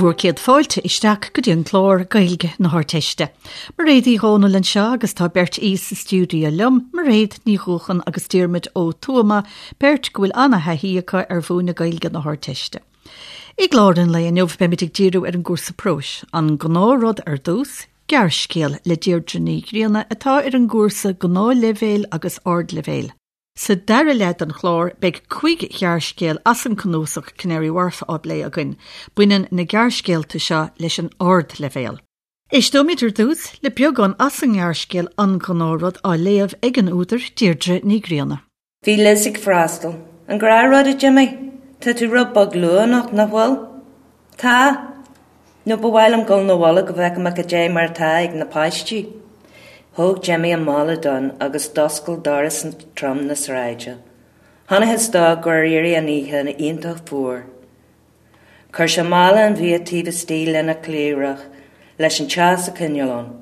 Bhur gcéad fáilte isteach go dtí an clár Gaeilge na hArdteiste. Mairéad Uí Dhomhnaill anseo agus tá beirt aoi sa stiúideo liom, Mairéad Ní Dhúcháin agus Diarmuid Ó Tuama, beirt go bhfuil ana-thaithí acu ar mhúineadh Gaeilge na hArdteiste. I gclár an lae inniu beimid ag díriú ar an gcúrsa próis, an gnáthrud ar dtús, gearrscéal le Deirdre Ní Ghrianna atá ar an gcúrsa gnáthleibhéil agus ardleibhéil. Sa dara leath den chlár, beidh cuig ghearrscéal as an cnuasach Canary Wharf á bplé againn. Baineann na gearrscéalta seo leis an ardleibhéal. Éisteoimid ar dtús le beagán as an ngearrscéal An Gnáthrud á léamh ag an údar, Deirdre Ní Ghrianna. Bhí Liz ag freastal. An gnáthrud, a Jimmy? Tá tú rud beag luath anocht, nach bhfuil? Tá. Nó ba mhaith liom dul 'na bhaile go bhfeice mé cad é mar atá ag na páistí. Thóg Jimmy an mála donn agus d'oscail doras trom na sráide. Chonacthas dó gur éirigh an oíche iontach fuar. Chuir sé mála an bhia taobh istigh lena chliabhrach leis an teas a choinneáil ann,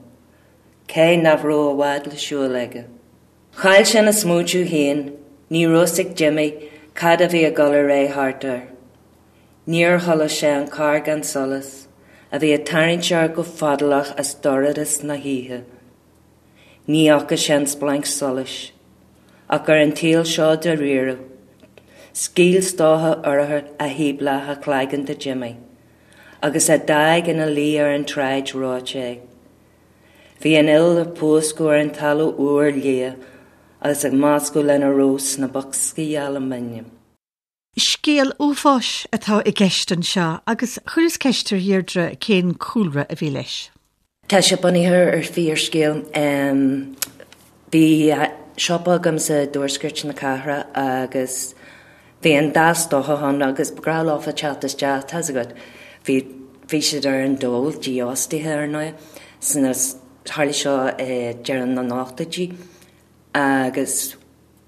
cé nach raibh i bhfad le siúl aige. Chaill sé ina smaointiú féin, ní raibh fhios ag Jimmy cad a bhí ag dul ar aghaidh thart air. Níor chuala sé an carr gan solas, a bhí ag tarraingt air go fadálach as dorchadas na hoíche. Ní fhaca sé an splanc solais. Ach ar an tsaol seo dáiríre, scaoil stoca urchair a shíob leath a chloigeann de Jimmy, agus a d'fhág ina luí ar an tsráid reoite é. Bhí an fhuil ag púscadh ar an talamh úr liath agus ag meascadh lena raibh sna boscaí alúmanaim. Scéal uafáis atá i gceist anseo agus chuireas ceist ar Dheirdre cén cúlra a bhí leis. Tá sé bunaithe ar fíorscéal. Bhí siopa agam sa dtuaisceart na cathrach agus bhí an dá stócach ann agus ba ghnách leofa teacht isteach, tá's agat. Bhí bhí siad ar an dól, dífhostaithe ar ndóigh, sna, tharla seo i deireadh na n-ochtóidí agus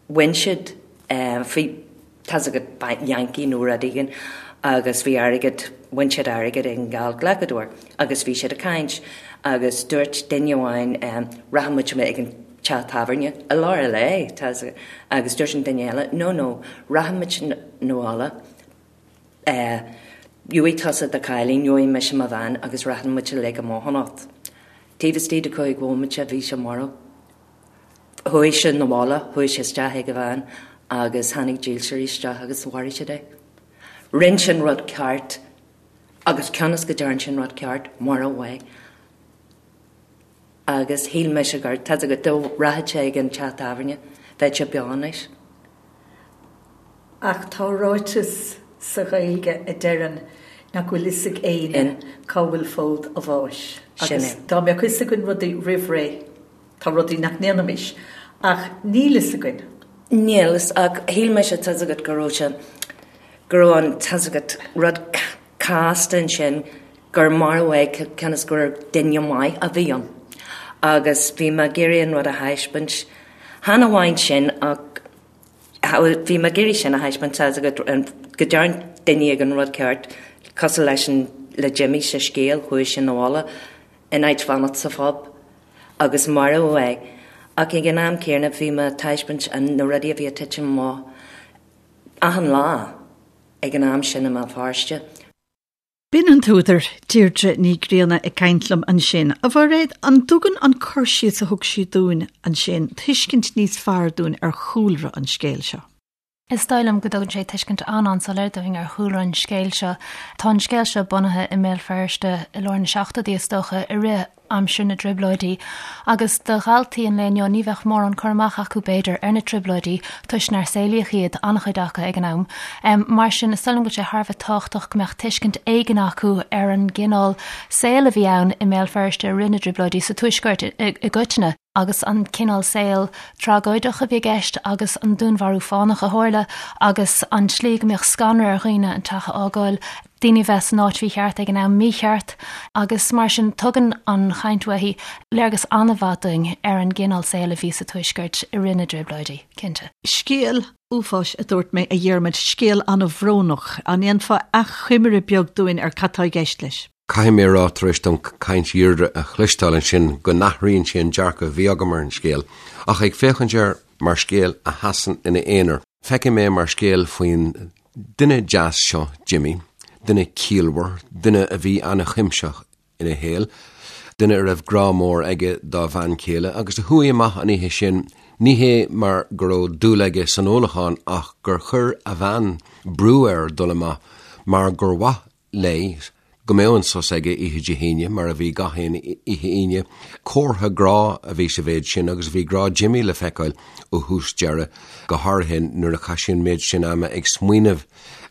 Bhain siad faoi, tá's agat, Yankee nó rud éigin agus bhí airgead, bhain siad airgead ag an geallghlacadóir agus bhí siad ag caint agus dúirt duine amháin rachaidh muid ag an teach tábhairne i lár an lae, tá's agat, agus dúirt an duine eile no no rachaidh muid 'na bhaile, gheobhaidh tusa do chailín, gheobhaidh mise mo bhean agus rachaidh muid uilig amach anocht. Taobh istigh de chúig bhomaite bhí sé marbh. Chuaigh sé 'na bhaile, chuaigh sé isteach ag a bhean agus tháinig dílseoirí isteach agus mharaigh siad é. Rinne sé an rud ceart agus cionn is go dtearn sé an rud ceart, maraíodh é. Agus shíl mise gur, tá's agat, dá rachadh sé ag an teach tábhairne, bheadh sé beo anois. Ach tá ráiteas sa Ghaeilge a deireann nach bhfuil fhios ag éinne cá bhfuil fód a bháis. Agus dá mbeadh fhios againn rudaí roimh ré, Tá rudaí nach ndéanfaimis, ach níl fhios againn. Níl fhios, ach shíl mise, tá's agat, go raibh sé, go raibh an, tá's agat, rud casta ansin, gur maraíodh é cionn is gur duine maith a bhí ann. Agus bhí mé ag iarraidh an rud a thaispeáint, chan amháin sin ach bhí mé ag iarraidh sin a thaispeáint, tá's agat, go dtearn duine éigin an rud ceart, cosúil leis an, le Jimmy sa scéal, chuaigh sé 'na bhaile in áit fanacht sa phub. agus maraíodh é, ach ag an am céanna bhí mé ag taispeáint na rudaí a bhí ag titim amach achan lá ag an am sin i mBéal Feirste. B'in an t-údar, Deirdre Ní Ghrianna ag caint liom ansin. A Mhairéad, an dtugann an cur síos a thug sí dúinn ansin tuiscint níos fearr dúinn ar chúlra an scéil seo? Is dóigh liom go dtugann sé tuiscint an-an-soiléir dúinn ar chúlra an scéil seo. Tá an scéal seo bunaithe i mBéal Feirste i lár na seachtóidí, is dócha, i rith aimsir na dTrioblóidí, agus do dhaltaí an lae inniu ní bheadh mórán cur amach acu, b'fhéidir, ar na Trioblóidí toisc nár saolaíodh iad, an-chuid acu, ag an am. Mar sin, is dóigh liom go bhfuil sé thar a bheith tábhachtach go mbeadh tuiscint éigin acu ar an gcineál saoil a bhí ann i mBéal Feirste i rith na dTrioblóidí, sa Tuaisceart i gcoitinne. agus an cineál saoil tragóideach a bhí i gceist agus an dúnmharú fánach a tharla agus an tslí go mbíodh scanradh ar dhaoine an teach a fhágáil, daoine a bheith san áit mhícheart ag an am mícheart agus mar sin tugann an chaint uaithi léargas an-mhaith dúinn ar an gcineál saoil a bhí sa Tuaisceart i rith na dTrioblóidí, cinnte. Scéal uafáis a dúirt mé, a Dhiarmaid, scéal an-bhrónach. An ndéanfá achoimre beag dúinn ar cad tá i gceist leis? Caithfidh mé a rá, tar éis dom caint Dheirdre a chloisteáil ansin, go n-athraíonn sé an dearcadh a bhí agam ar an scéal. Ach ag féachaint air mar scéal a sheasann ina aonar, feicim é mar scéal faoin duine deas seo, Jimmy. Duine ciallmhar, duine a bhí an-chuimsitheach ina shaol, duine a raibh grá mór aige dá bhean chéile agus a chuaigh amach an oíche sin, ní hé mar go raibh dúil aige san ólachán ach gur chuir a bhean brú air dul amach mar gur mhaith léi go mbeadh an sos aige oíche Dé hAoine, mar a bhí gach aon oíche Aoine. Comhartha grá a bhí sa mhéid sin agus bhí grá Jimmy le feiceáil ó thús deireadh, go háirithe nuair a chaith sé an méid sin ama ag smaoineamh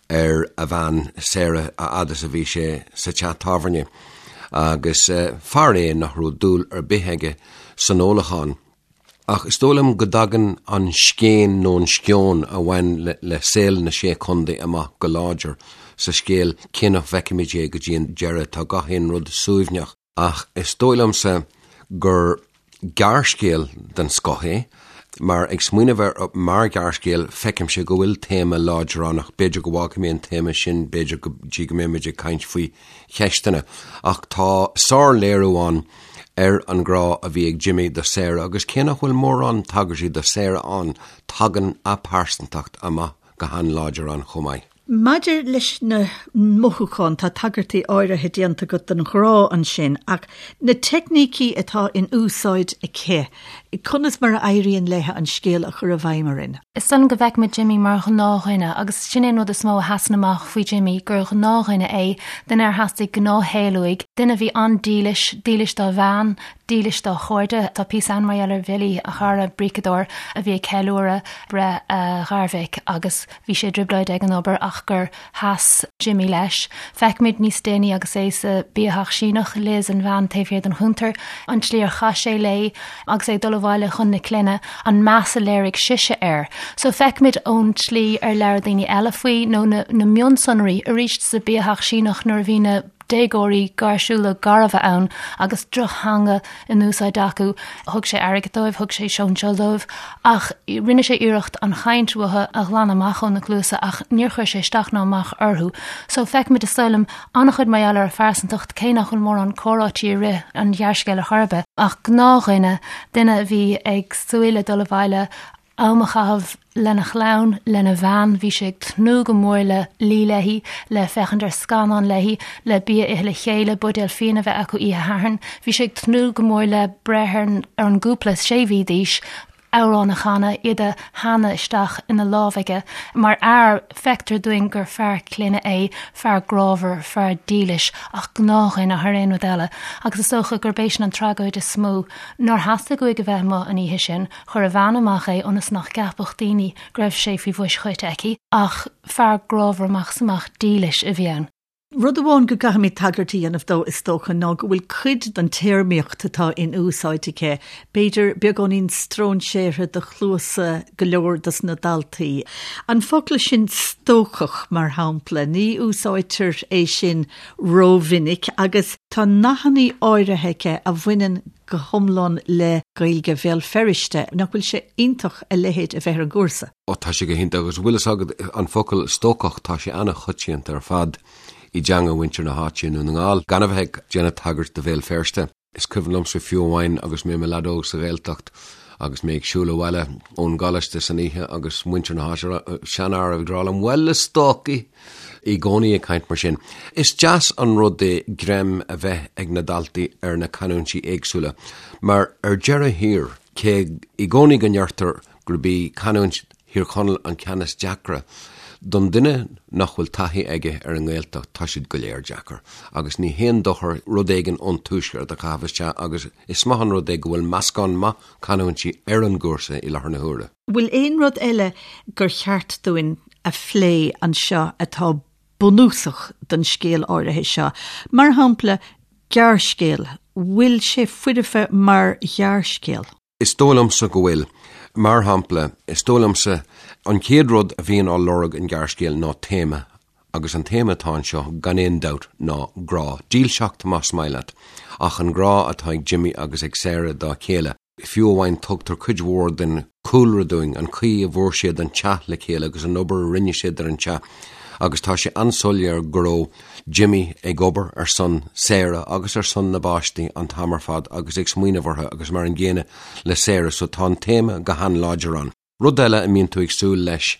ar a bhean Sarah a fhad is a bhí sé sa teach tábhairne. Agus fear é nach raibh dúil ar bith aige san ólachán. Ach is dóigh liom go dtagann an scéin nó an sceon a bhain le saol na Sé Chontae amach go láidir sa scéal, cé nach bhfeicimid é go dtí an deireadh, tá gach aon rud suaimhneach. Ach is dóigh liomsa gur gearrscéal den scoth é, mar ag smaoineamh air mar ghearrscéal, feicimse go bhfuil téama láidir ann, ach b'fhéidir go bhfágfaidh mé an téama sin, b'fhéidir go dtí go mbeimid ag caint faoi cheisteanna. Ach tá sárléiriú ann ar an ghrá a bhí ag Jimmy do Sarah agus cé nach bhfuil mórán tagairtí do Sarah ann, tagann a pearsantacht amach go han-láidir ann chomh maith. Maidir leis na mothúcháin, tá tagairtí áirithe déanta agat don ghrá ansin, ach na teicnící atá in úsáid aici, conas mar a éiríonn léi an scéal a chur i bhfeidhm orainn? Is dóigh liom go bhfeicimid Jimmy mar ghnáthdhuine agus sin é an rud is mó a sheasann amach faoi Jimmy, gur ghnáthdhuine é, duine ar theastaigh gnáthshaol uaidh, duine a bhí an-dílis, dílis dá bhean, dílis dá chairde. Tá píosa ann mar gheall ar Bhilly, a chara bríceadóir a bhí ag ceiliúradh breith a gharmhic agus bhí sé i dtrioblóid ag an obair ach gur sheas Jimmy leis. Feicimid níos déanaí agus é sa biatheach Síneach, Liz, an bhean taobh thiar den chuntar, an tslí ar chaith sé léi agus é ag dul abhaile chun na clainne, an meas a léirigh sise air. So feicimid ón tslí ar labhair daoine eile faoi nó na na mionsonraí arís sa biatheach Síneach nuair a bhí na déagóirí gáirsiúla garbha ann agus drochtheanga in úsáid acu. Thug sé airgead dóibh, thug sé sóinseáil dóibh ach rinne sé iarracht an chaint uathu a ghlanadh amach óna gcluasa ach níor chuir sé isteach ná amach orthu. So feicimid is dóigh liom an-chuid mar gheall ar a phearsantacht cé nach bhfuil mórán comhráití i rith an ghearrscéil ar chor ar bith. Ach gnáthdhuine, duine a bhí ag súil le dul abhaile am a chaitheamh lena chlann, lena bhean, bhí sé ag tnúth go mór le luí léi, le féachaint ar scannán léi, le bia a ithe le chéile, buidéal fíona a bheith acu oíche Shathairn. Bhí sé ag tnúth go mór le breith ar an gcúpla sé mhí d'aois, amhrán a chanadh, iad a theannadh isteach ina lámh aige. Mar fhear, feictear dúinn gur fear clainne é, fear grámhar, fear dílis, ach gnáthdhuine thar aon rud eile. Agus is dócha gurb é sin an tragóid is mó, nár theastaigh uaidh a bheith amuigh an oíche sin, Chuir a bhean amach é ionas nach gceapfadh daoine go raibh sé faoi bhois choite aici, ach fear grámhar amach is amach dílis a bhí ann. Rud amháin go gcaithfimid tagairt a dhéanamh dó, is dócha, ná go bhfuil cuid den téarmaíocht atá in úsáid aici, b'fhéidir, beagáinín stróinséartha do chluasa go leor dos na daltaí. An focal sin 'stócach', mar shampla, ní úsáidtear é sin rómhinic agus tá nathannaí áirithe aici a bhaineann go hiomlán le Gaeilge Bhéal Feirste. Nach bhfuil sé iontach a leithéid a bheith ar an gcúrsa? Ó tá sé go hiontach agus bhfuil fhios agat an focal stócach tá sé an-choitianta ar fad i dteanga mhuintir na háite i nDún na nGall, gan a bheith ag déanamh tagairt do Bhéal Feirste. Is cuimhin liomsa fiú amháin agus mé i mo leaid óg sa Ghaeltacht agus mé ag siúl abhaile ón gcoláiste san oíche agus muintir na háite, seanfhear ag rá liom, 'Bhuel a stócaigh! i gcónaí ag caint mar sin. Is deas an rud é greim a bheith ag na daltaí ar na canúintí éagsúla, mar ar deireadh thiar, cé i gcónaí go ndeirtear gurb í canúint Thír Chonaill an ceann is deacra, don duine nach bhfuil taithí aige ar an nGaeltacht, tá siad go léir deacair, agus ní haon dochar rud éigin ón tuaisceart a chaitheamh isteach agus is maith an rud é go bhfuil meascán maith canúintí ar an gcúrsa i láthair na huaire. Bhfuil aon rud eile gur cheart dúinn a phlé anseo atá bunúsach don scéal áirithe seo. Mar shampla, gearrscéal, bhfuil sé foirfe mar ghearrscéal? Is dóigh liomsa go bhfuil. Mar shampla, is dóigh liomsa, an chéad rud a bhíonn á lorg in gearrscéal ná téama, agus an téama atá anseo, gan aon dabht, ná grá. Dílseacht, más maith leat, ach an grá atá ag Jimmy agus ag Sarah dá chéile. Fiú amháin tugtar cuid mhór den chúlra dúinn, an chaoi a bhfuair siad an teach le chéile agus an obair a rinne siad ar an teach agus tá sé an-soiléir go raibh Jimmy ag obair ar son Sarah agus ar son na bpáistí an t-am ar fad agus ag smaoineamh orthu agus mar an gcéanna le Sarah so tá an téama go han-láidir ann. Rud eile a mbíonn tú ag súil leis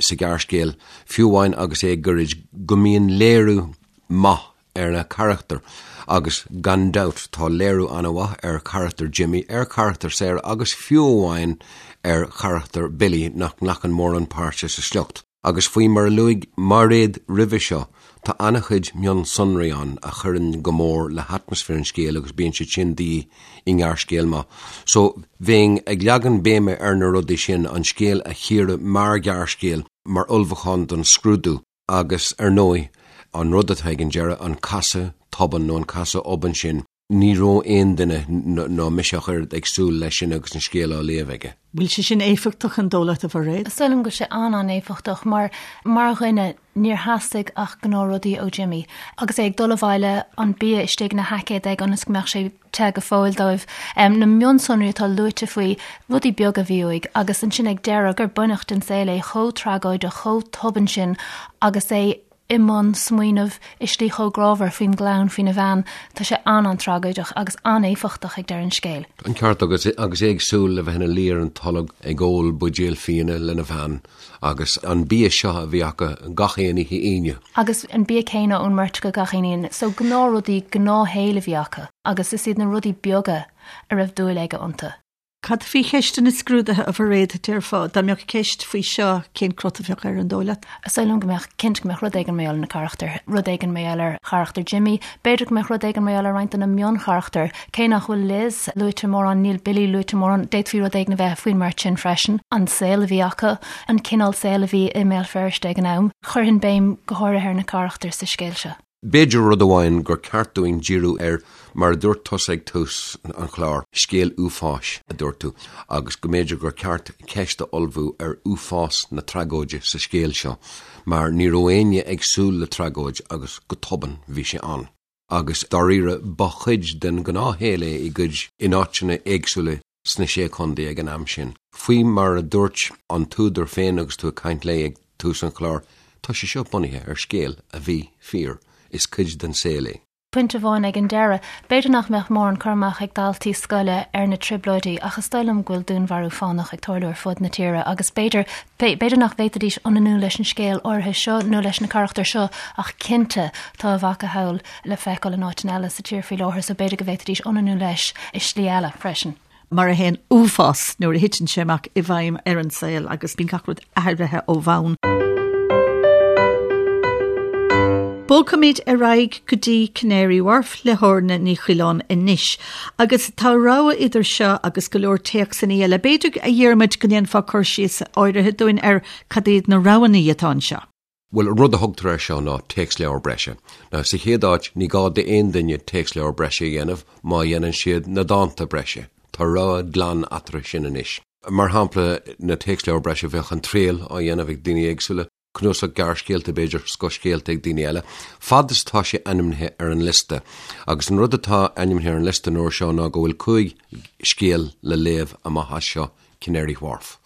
sa ghearrscéal, fiú amháin agus é gairid, go mbíonn léiriú maith ar na carachtair agus gan dabht tá léiriú an-mhaith ar charachtar Jimmy, ar charachtar Sarah agus fiú amháin ar charachtar Billy nach nglacann mórán páirte sa sliocht. Agus faoi mar a luaigh Mairéad roimhe seo, tá an-chuid mionsonraí ann a chuireann go mór le hatmaisféar an scéil agus bíonn siad sin de dhíth i ngearrscéal maith. So, bheinn ag leagan béime ar na rudaí sin, an scéal a chíoradh mar ghearrscéal, mar ullmhúchán don scrúdú, agus ar ndóigh, an rud atá ag an deireadh, an casadh tobann nó an casadh obann sin, Ní raibh aon duine, ná mise ach oiread, ag súil leis sin agus an scéal á léamh aige. Bhfuil sé sin éifeachtach an dóigh leat, a Mhairéad? Is dóigh liom go bhfuil sé an-an-éifeachtach mar, mar dhuine, níor theastaigh ach gnáthrudaí ó Jimmy. Agus é ag dul abhaile, an bia istigh ina sheaicéad aige ionas go mbeadh sé te go fóill dóibh. Na mionsonraí atá luaite faoi, rudaí beaga a bhí uaidh. Agus ansin ag deireadh, gur baineadh den saol é chomh tragóideach, chomh tobann sin agus é i mbun smaoineamh i slí chomh grámhar faoin gclann, faoina bhean. Tá sé an-an-tragóideach agus an-éifeachtach ag deireadh an scéil. An ceart agat, agus é ag súil le bheith ina luí ar an tolg ag ól buidéal fíona lena bhean agus an bia seo a bhí acu gach aon oíche Aoine. Agus an bia céanna ón mbeirt acu gach aon Aoine. So gnáthrudaí, gnáthshaol a bhí acu agus is iad na rudaí beaga a raibh dúil aige iontu. Cad faoi cheisteanna scrúdaithe, a Mhairéad, déarfá? Dá mbeadh ceist faoi seo, cén crot a bheadh air, an dóigh leat? Is dóigh liom go mbeadh, cinnte go mbeadh rud éigin mar gheall ar na carachtair, rud éigin mar gheall ar charachtar Jimmy, b'fhéidir go mbeadh rud éigin mar gheall ar roinnt de na mioncharachtair. Cé nach bhfuil Liz luaite mórán, níl Billy luaite mórán, d'fhéadfaí rud éigin a bheith faoin mbeirt sin freisin. An saol a bhí acu, an cineál saoil a bhí i mBéal Feirste ag an am. Chuirfinn béim go háirithe ar na carachtair sa scéal seo. B'fhéidir rud amháin gur ceart dúinn díriú air, mar a dúirt tusa ag tús an chláir, scéal uafáis, a dúirt tú, agus go mb'fhéidir gur ceart ceist a ullmhú ar uafás na tragóide sa scéal seo, mar ní raibh éinne ag súil le tragóid agus go tobann bhí sé ann. Agus dáiríre ba chuid den ghnáthshaol é i gcuid, in áiteanna éagsúla sna Sé Chontae ag an am sin. Faoi mar a dúirt an t-údar féin agus tú ag caint léi ag tús an chláir, tá sé seo bunaithe ar scéal a bhí fíor, is cuid den saol é. Pointe amháin ag an deireadh, b'fhéidir nach mbeadh mórán cur amach ag daltaí scoile ar na Trioblóidí ach is dóigh liom go bhfuil dúnmharú fánach ag tarlú ar fud na tíre agus b'fhéidir, b'fhéidir nach bhféadfaidís ionannú leis an scéal áirithe seo nó leis na carachtair seo ach cinnte tá a mhacasamhail le feiceáil in áiteanna eile sa tír faoi láthair so b'fhéidir go bhféadfaidís ionannú leis i slí eile freisin. Mar a théann uafás nuair a thiteann sé amach i bhfeidhm ar an saol agus bíonn gach rud athraithe ó bhonn. Bogfaimid ar aghaidh go dtí Canary Wharf le hOrna Ní Choileáin anois. Agus tá rogha idir seo agus go leor téacsanna eile. B'fhéidir, a Dhiarmuid, go ndéanfá cur síos áirithe dúinn ar cad iad na roghanna atá anseo. Bhuel, an rud a thugtar air seo ná téacsleabhar breise. Now, sa chéad áit, ní gá d'aon duine téacsleabhar breise a dhéanamh má dhéanann siad na dánta breise. Tá rogha glan eatarthu sin anois. Mar shampla, na téacsleabhair breise, bheadh An Triail á dhéanamh ag daoine éagsúla, cnuasach gearrscéalta, b'fhéidir, scothscéalta ag daoine eile, fad is atá sé ainmnithe ar an liosta. Agus an rud atá ainmnithe ar an liosta an uair seo ná go bhfuil 5 scéal le léamh amach as seo Canary Wharf.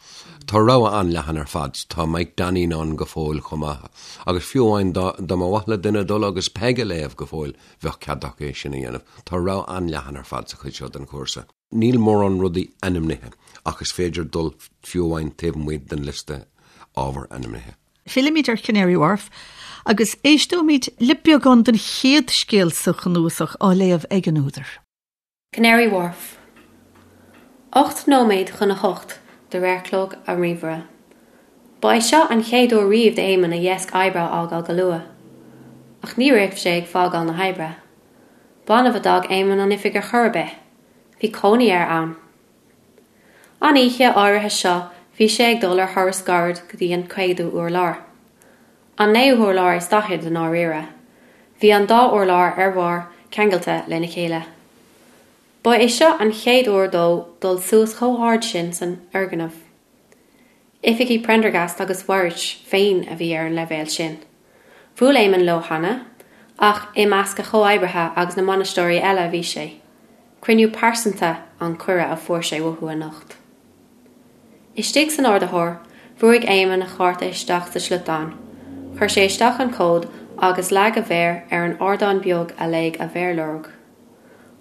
Tá rogha an-leathan ar fad. Tá Mike Donneen ann go fóill chomh maith. Agus fiú amháin dá mba mhaith le duine dul agus Peig a léamh go fóill, bheadh cead acu é sin a dhéanamh. Tá rogha an-leathan ar fad sa chuid seo den chúrsa. Níl mórán rudaí ainmnithe ach is féidir dul fiú amháin taobh amuigh den liosta ábhar ainmnithe. Fillfimid ar Canary Wharf agus éisteoimid le beagán den chéad scéal sa chnuasach á léamh ag an údar. Canary Wharf. 8 nóiméad chun a hocht de réir chlog an ríomhaire. Ba é seo an chéad uair riamh d'Éamonn a dheasc oibre a fhágáil go luath. Ach ní raibh sé ag fágáil na hoibre. B'annamh a d'fhág Éamonn an oifig ar chor ar bith. Bhí cónaí air ann. An oíche áirithe seo bhí sé ag dul ar thuras gairid go dtí an céadú urlár. An naoú hurlár is daichead i ndáiríre. Bhí an dá urlár ar bharr ceangailte lena chéile. Ba é seo an chéad uair dó dul suas chomh hard sin san fhoirgneamh. Oifigí Prendergast agus Warraich féin a bhí ar an leibhéal sin. Bhuail Éamonn leo cheana, ach i measc a chomhoibrithe agus na mbainisteoirí eile a bhí sé. Cruinniú pearsanta an cuireadh a fuair sé uathu anocht. Istigh san ardaitheoir, bhrúigh Éamonn a chárta isteach sa sliotán, chuir sé isteach an cód agus leag a mhéar ar an ardán beag a léigh a mhéarlorg.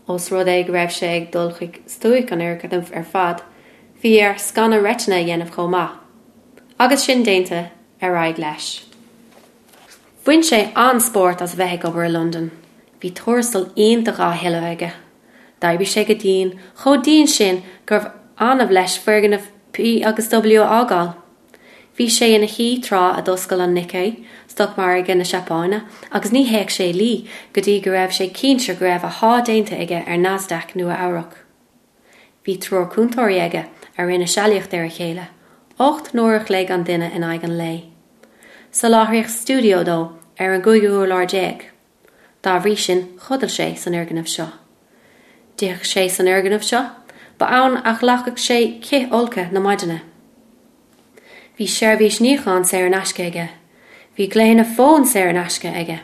Ós rud é go raibh sé ag dul chuig stuaic an fhoirgnimh ar fad, bhí air scanadh reitine a dhéanamh chomh maith. Agus sin déanta, ar aghaidh leis. Bhain sé an-spórt as a bheith ag obair i Londain. Bhí tuarastal iontach á thuilleamh aige. D'oibrigh sé go dian, chomh dian sin gurbh annamh leis foirgneamh P agus W a fhágáil. Bhí sé ina shuí tráth a d'oscail an Nikkei, stocmhargadh na Seapáine, agus ní théadh sé a luí go dtí go raibh sé cinnte go raibh a sháith déanta aige ar Nasdaq Nua-Eabhrac. Bhí triúr cúntóirí aige a rinne sealaíocht ar a chéile, 8 n-uair a chloig an duine in aghaidh an lae. Soláthraíodh stiúideo dó ar an gcúigiú hurlár. Dá bhrí sin, chodail sé san fhoirgneamh seo. D'itheadh sé san fhoirgneamh seo. Ba ann a ghlacadh sé cith folctha na maidine. Bhí seirbhís níocháin saor in aisce aige. Bhí glaonna fóin saor in aisce aige.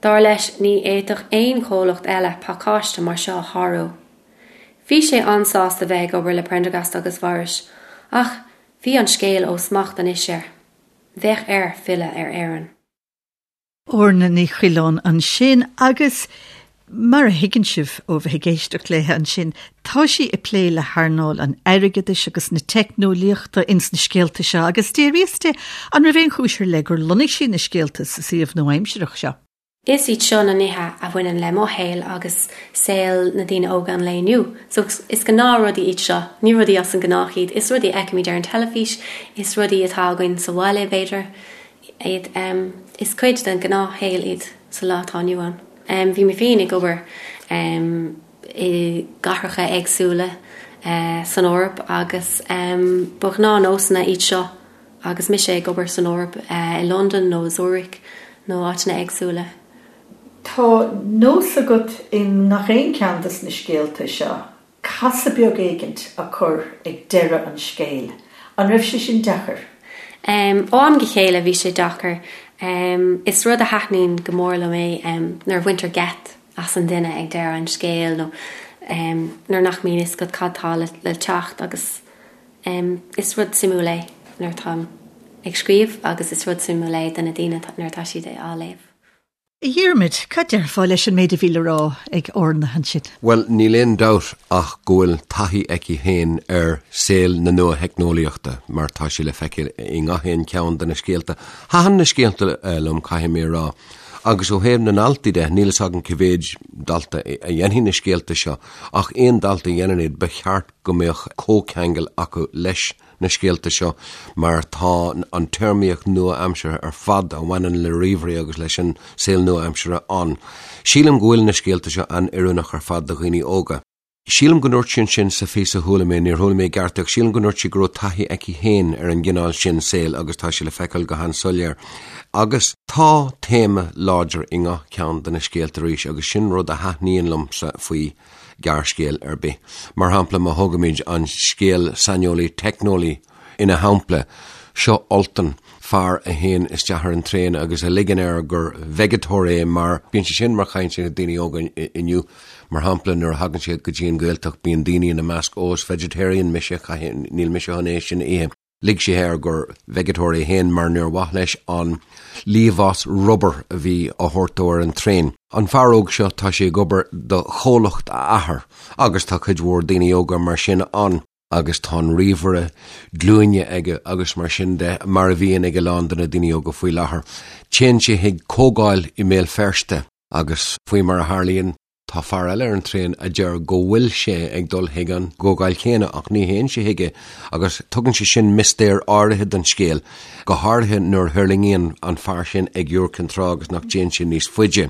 Dar leis, ní fhéadfadh aon chomhlacht eile pacáiste mar seo a shárú. Bhí sé an-sásta bheith ag obair le Prendergast agus Morris, ach bhí an scéal ó smacht anois air. Bheadh air filleadh ar Éirinn. Orna Ní Choileáin ansin agus mar a thuigeann sibh ó bheith ag éisteacht léi ansin, tá sí ag plé le hearnáil an airgeadais agus na teicneolaíochta ins na scéalta seo agus d'fhiafraíos di an raibh aon chúis ar leith gur lonnaigh sí na scéalta sa suíomh nua-aimsireach seo. Is iad seo na nithe a bhaineann le mo shaol agus saol na daoine óga an lae inniu. So is gnáthrudaí iad seo, ní rudaí as an ngnách iad. Is rudaí a fheicimid ar an teilifís, is rudaí atá againn sa bhaile, b'fhéidir. iad. Is cuid den ghnáthshaol iad sa lá atá inniu ann. Bhí mé féin ag obair i gcathracha éagsúla san Eoraip agus ba ghnáthnósanna iad seo agus mise ag obair san Eoraip, i Londain nó i Zurich nó áiteanna éagsúla. Tá nós agat i ngach aon cheann de na scéalta seo casadh beag éigint a chur ag deireadh an scéil. An raibh sé sin deacair? Ó am go chéile bhí sé deacair. Is rud a thaitníonn go mór liom é nuair a bhaintear geit as an duine ag deireadh an scéil nó nuair nach mbíonn fhios agat cad tá le teacht agus is rud suimiúil é nuair atáim ag scríobh agus is rud suimiúil é do na daoine nuair atá siad á léamh. A Dhiarmaid, cad déarfá leis an méid a bhí le rá ag Orna ansin? Bhuel, níl aon dabht ach go bhfuil taithí aici féin ar saol na nua-theicneolaíochta, mar tá sé le feiceáil i ngach aon cheann de na scéalta. Thaitin na scéalta liom, caithfidh mé a rá. Agus ó thaobh na ndaltaí de, níl fhios agam cé mhéid dalta a dhéanfaidh na scéalta seo, ach aon dalta a dhéanann iad, ba cheart go mbeadh comhcheangal acu leis na scéalta seo mar tá an téarmaíocht nua-aimseartha ar fad a bhaineann le ríomhairí agus leis an saol nua-aimseartha ann. Sílim go bhfuil na scéalta seo an-oiriúnach ar fad do dhaoine óga. Sílim go ndúirt sí ansin sa phíosa a chuala mé, níor chuala mé i gceart é ach sílim go ndúirt sí go raibh taithí aici féin ar an gcineál sin saoil agus tá sé le feiceáil go han-soiléir. Agus tá téama láidir i ngach ceann de na scéalta arís agus sin rud a thaitníonn liomsa faoi gearrscéal ar bith. Mar shampla, má thógaimid an scéal Saineolaí Teicneolaí ina shampla, seo Ultan, fear a théann isteach ar an traein agus a ligeann air gur veigeatóir é mar bíonn sé sin mar chaint ag daoine óga inniu. Mar shampla, nuair a thagann siad go dtí an Ghaeltacht bíonn daoine ina measc, ó is vegetarian mise, níl mise chun é sin a ithe. Lig sé air gur veigeatóir é féin mar níor mhaith leis an liamhás rubair a bhí á thabhairt dó ar an traein. An fear óg seo, tá sé ag obair do chomhlacht a athar agus tá cuid mhór daoine óga mar sin ann, agus tá an ríomhaire glúine aige agus mar sin de, mar a bhíonn ag a lán de na daoine óga faoi láthair. Téann sé chuig comhdháil i mBéal Feirste agus faoi mar a tharlaíonn, Tá fear eile ar an traein a deir go bhfuil sé ag dul chuig an gcomhdháil chéanna ach ní théann sé chuige agus tugann sé sin mistéir áirithe don scéal, go háirithe nuair a thuirlingíonn an fear sin ag Iúr Cinn Trá agus nach dtéann sé níos faide.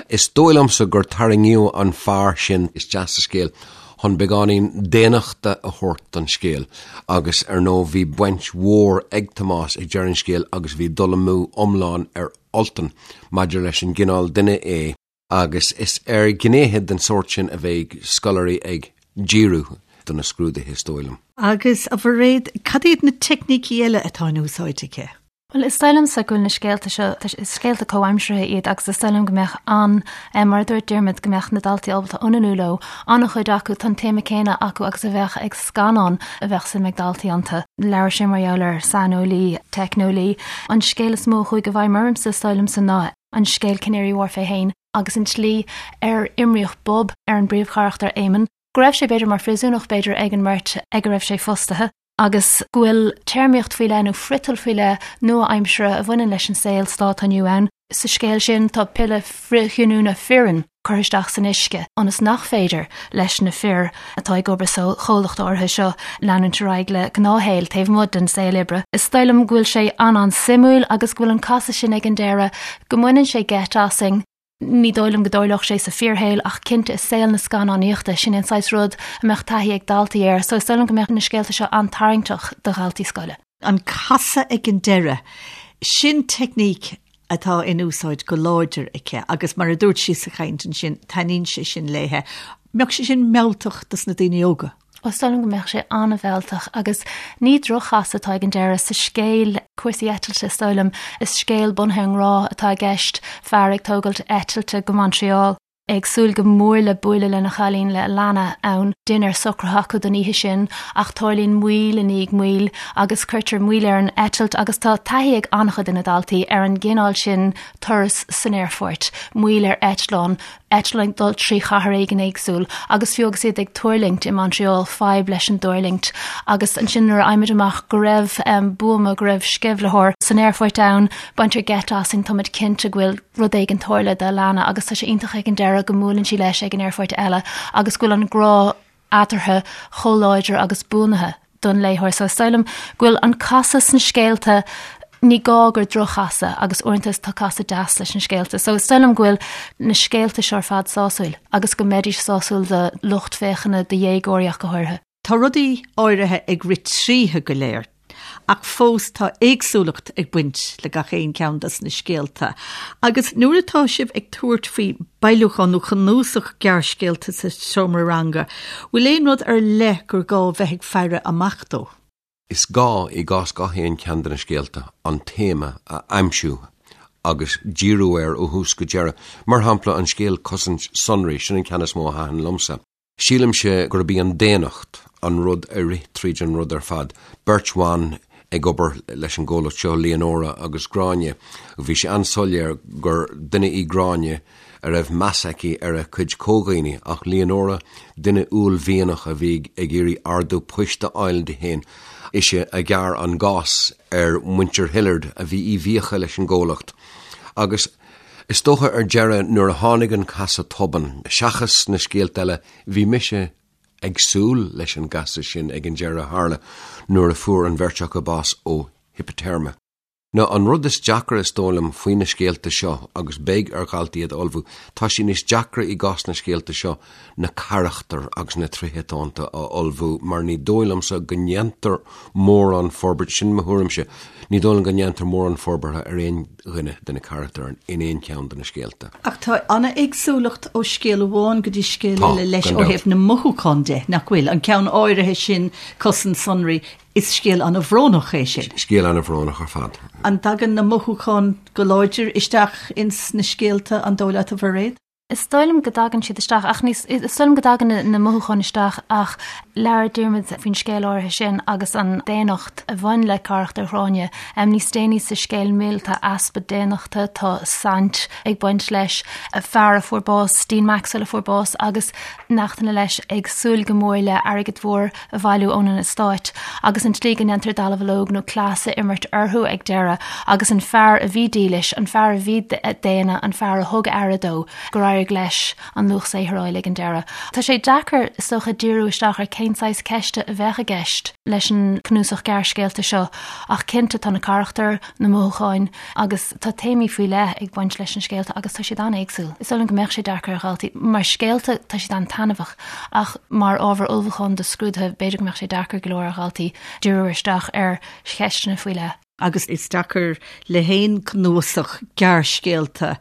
Is dóigh liomsa gur tarraingíodh an fear sin isteach sa scéal chun beagáinín daonnachta a thabhairt don scéal agus ar ndóigh bhí baint mhór ag Tomás ag deireadh an scéil agus bhí dul amú iomlán ar Ultan maidir leis an gcineál duine é. agus is ar ghnéithe den sórt sin a bheidh scoláirí ag díriú do na scrúduithe, is dóigh liom. Agus, a Mhairéad, cad iad na teicnící eile atá in úsáid aici? Bhuel, is dóigh liomsa go bhfuil na scéalta seo, is scéalta comhaimseartha iad agus is dóigh liom go mbeadh an, mar a dúirt Diarmuid, go mbeadh na daltaí ábalta ionannú leo. An-chuid acu, tá an téama céanna acu agus a bheadh ag scannán a bheadh suim ag daltaí iontu. Labhair sé mar gheall ar saineolaí, teicneolaí. An scéal is mó a chuaigh i bhfeidhm ormsa, is dóigh liomsa, ná an scéal Canary Wharf é féin agus an tslí ar imríodh bob ar an bpríomhcharachtar Éamonn, go raibh sé b'fhéidir mar phríosúnach b'fhéidir ag an mbeirt ag a raibh sé fostaithe. Agus go bhfuil téarmaíocht faoi leith nó friotal faoi leith nua-aimseartha a bhaineann leis an saol sa lá atá inniu ann. Sa scéal sin tá piolla frithghiniúna fireann curtha isteach san uisce ionas nach féidir leis na fir atá ag obair sa chomhlacht áirithe seo leanúint ar aghaidh le gnáthshaol taobh amuigh den saol oibre. Is dóigh liom go bhfuil sé an-an-suimiúil agus go bhfuil an casadh sin ag an deireadh, go mbaineann sé geit asainn. Ní dóigh liom go dtarlódh sé sa fíorshaol ach cinnte i saol na scannánaíochta, sin é an saghas rud a mbeadh taithí ag daltaí air, so is dóigh liom go mbeadh na scéalta seo an-tarraingteach do dhaltaí scoile. An casadh ag an deireadh, sin teicníc atá in úsáid go láidir aici agus mar a dúirt sí sa chaint ansin, taitníonn sé sin léithe. Mbeadh sé sin mealltach dos na daoine óga? Is dóigh liom go mbeadh sé an-mhealltach agus ní droch-chasadh atá ag an deireadh sa scéal cúrsaí eitilte is dóigh liom. Is scéal bunaithe ar an ngrá atá i gceist, fear ag tógailt eitilte go Montreal, é ag súil go mór le bualadh lena chailín, le Alana, ann. Dinnéar socraithe acu don oíche sin ach tarlaíonn moill i ndiaidh moill agus cuirtear moill ar an eitilt agus tá taithí ag an-chuid de na daltaí ar an gcineál sin turas san aerfort, moill ar eitleán, eitleán ag dul trí chathair éigin éagsúil agus fiú agus iad ag tuirlingt i Montreal, fadhb leis an dtuirlingt. Agus ansin nuair a fhaighimid amach go raibh buama, go raibh sceimhlitheoir san aerfort ann, baintear geit asainn, táimid cinnte go bhfuil rud éigin tarlaithe d'Alana agus tá sé iontach ag an deireadh go mbuaileann sí leis ag an aerfort eile agus go bhfuil an grá eatarthu chomh láidir agus buanaithe don léitheoir. So is dóigh liom go bhfuil an casadh sna scéalta, ní gá gur droch-chasadh agus uaireanta tá casadh deas leis na scéalta. So is dóigh liom go bhfuil na scéalta seo ar fad sásúil agus go mbeidís sásúil do lucht féachana, do dhéagóirí ach go háirithe. Tá rudaí áirithe ag rith tríothu go léir. Ach fós tá éagsúlacht ag baint le gach aon cheann dos na scéalta. Agus nuair atá sibh ag tabhairt faoi bailiúchán nó cnuasach gearrscéalta sa seomra ranga, bhfuil aon rud ar leith gur gá bheith ag faire amach dó? Is gá, i gcás gach aon cheann de na scéalta, an téama a aimsiú agus díriú air ó thús go deireadh. Mar shampla, an scéal 'Cosaint Sonraí', sin an ceann is mó a thaitin liomsa. Sílimse gurb í an daonnacht an rud a rith tríd an rud ar fad. Beirt bhan ag obair leis an gcomhlacht seo, Leonora agus Gráinne. Bhí sé an-soiléir gur duine í Gráinne a raibh meas aici ar a cuid comhdhaoine, ach Leonora, duine uaillmhianach a bhí ag iarraidh ardú poist a fháil di féin. Ise a ghearr an gás ar mhuintir Hillard a bhí i bhfiacha leis an gcomhlacht. Agus. Is dócha ar deireadh nuair a tháinig an casadh tobann, seachas na scéalta eile, bhí mise ag súil leis an gcasadh sin ag an deireadh a tharla nuair a fuair an bheirt acu bás ó hipiteirme. Now an rud is deacra is dóigh liom faoi na scéalta seo, agus beidh ar dhaltaí iad a ullmhú, tá sé níos deacra i gcás na scéalta seo na carachtair agus na tréithe atá iontu a ullmhú mar ní dóigh liomsa go ndéantar mórán forbairt, sin mo thuairimse, ní dóigh liom go ndéantar mórán forbartha ar aon dhuine de na carachtair in aon cheann de na scéalta. Ach tá an-éagsúlacht ó scéal amháin go dtí scéal eile leis ó thaobh na mothúchán de, nach bhfuil? An ceann áirithe sin, Cosaint Sonraí, is scéal an-bhrónach é sin. Scéal an-bhrónach ar fad. An dtagann na mothúcháin go láidir isteach ins na scéalta, an dóigh leat, a Mhairéad? Is dóigh liom go dtagann siad isteach ach ní is dóigh liom go dtagann na mothúcháin isteach ach labhair Diarmuid faoin scéal áirithe sin agus an daonnacht a bhain le carachtar Ghráinne. Níos déanaí sa scéal Mil tá easpa daonnachta, tá saint ag baint leis, fear a fuair bás, Dean Maxwell a fuair bás agus neachtanna leis ag súil go mór le airgead mhór a bhailiú ón eastát agus an tslí go ndéantar dallamhullóg nó cleas a imirt orthu ag deireadh agus an fear a bhí dílis, an fear a bhí daonna, an fear a thug aire dó, gur éirigh leis an luach saothair a fháil ag an deireadh. Tá sé deacair, is dócha, díriú isteach ar cén saghas ceiste a bheadh i gceist leis an cnuasach gearrscéalta seo ach cinnte tá na carachtair, na mothúcháin agus tá téamaí faoi leith ag baint leis na scéalta agus tá siad an-éagsúil. Is dóigh liom go mbeadh sé deacair ar dhaltaí. Mar scéalta tá siad an-taitneamhach ach mar ábhar ullmhúcháin do scrúduithe b'fhéidir go mbeadh sé deacair go leor ar dhaltaí díriú isteach ar cheisteanna faoi leith. Agus is deacair le haon cnuasach gearrscéalta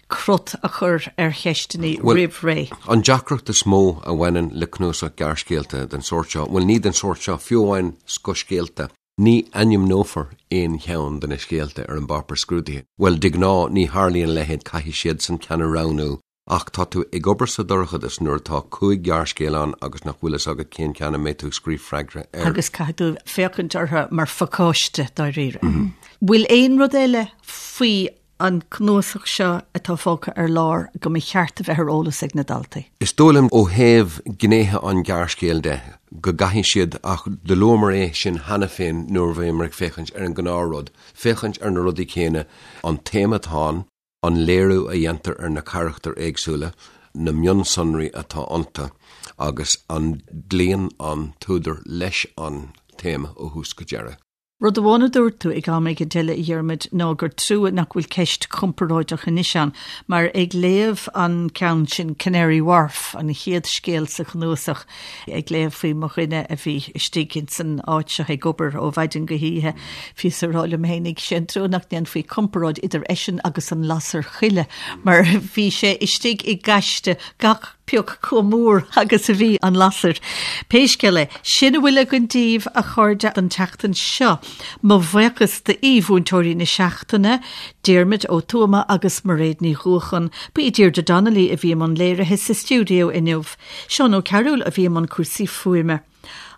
crot a chur ar cheisteanna roimh ré. An deacracht is mó a bhaineann le cnuasach gearrscéalta den sórt seo, bhuel ní den sórt seo, fiú amháin scothscéalta, Ní ainmneofar aon cheann de na scéalta ar an bpáipéar scrúdaithe. Bhuel, de ghnáth, ní tharlaíonn a leithéid, caithfidh siadsan ceann a roghnú. Ach tá tú ag obair sa dorchadas nuair atá 5 ghearrscéal ann agus nach bhfuil fhios agat cén ceann a mbeidh tú ag scríobh freagra air. Agus caithfidh tú féachaint orthu mar phacáiste, dáiríre. Bhfuil aon rud eile faoi. an cnuasach seo atá fágtha ar lár go mba cheart a bheith ar eolas ag na daltaí? Is dóigh liom ó thaobh gnéithe an ghearrscéil de, go gcaithfidh siad, ach do luamar é sin cheana féin nuair a bhíomar ag féachaint ar an ngnáthrud, féachaint ar na rudaí céanna, an téama atá ann, an léiriú a dhéantar ar na carachtair éagsúla, na mionsonraí atá iontu agus an gcloíonn an t-údar leis an téama ó thús go deireadh. Rud amháin a dúirt tú ag am éigin eile, a Dhiarmuid, ná gur trua nach bhfuil ceist chomparáideach anois ann, mar ag léamh an ceann sin, Canary Wharf, an chéad scéal sa chnuasach, ag léamh faoi mo dhuine a bhí istigh ins an áit seo ag obair ó mhaidin go hoíche, bhíos ag rá liom fhéinig, sé an trua nach ndéanfaí comparáid idir eisean agus an lasair choille, mar bhí sé istigh i ngaiste gach pioc chomh mór agus a bhí an lasair. Pé scéal é, sin a bhfuil againn daoibh, a chairde, don tseachtain seo. Mo bhuíochas d'aoi-mhúinteoirí na seachtaine, Diarmuid Ó Tuama agus Mairéad Ní Dhuacháin. Ba í Deirdre Donnelly a bhí i mbun léirithe sa stiúideo inniu. Seán Ó Cearúil a bhí i mbun cúrsaí fuaime.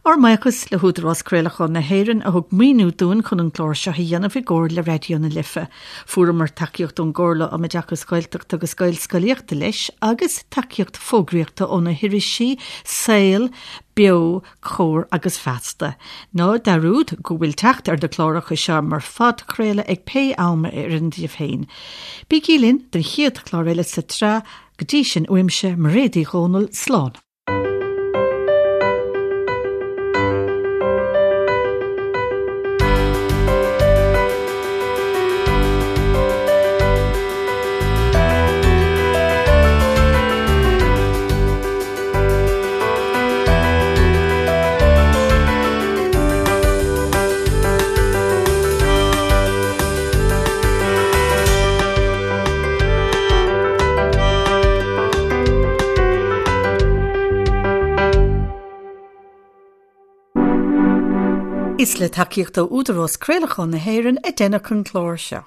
Ár mbuíochas le hÚdarás Craolacháin na hÉireann a thug maoiniú dúinn chun an clár seo a dhéanamh i gcomhar le Raidió na Life. Fuaireamar tacaíocht ón gComhairle um Oideachas Gaeltachta agus Gaelscolaíochta leis agus tacaíocht fógraíochta ó na hirisí Saol, Beo, Comhar agus Feasta. Ná dearúd go bhfuil teacht ar na cláracha seo mar phodchraoladh ag pé am a oireann daoibh féin. Bígí linn don chéad chlár eile sa tsraith, go dtí sin uaimse, Mairéad Uí Dhomhnaill, slán. Is le tacaíocht ó Údarás Craolacháin na hÉireann a deineadh an clár seo.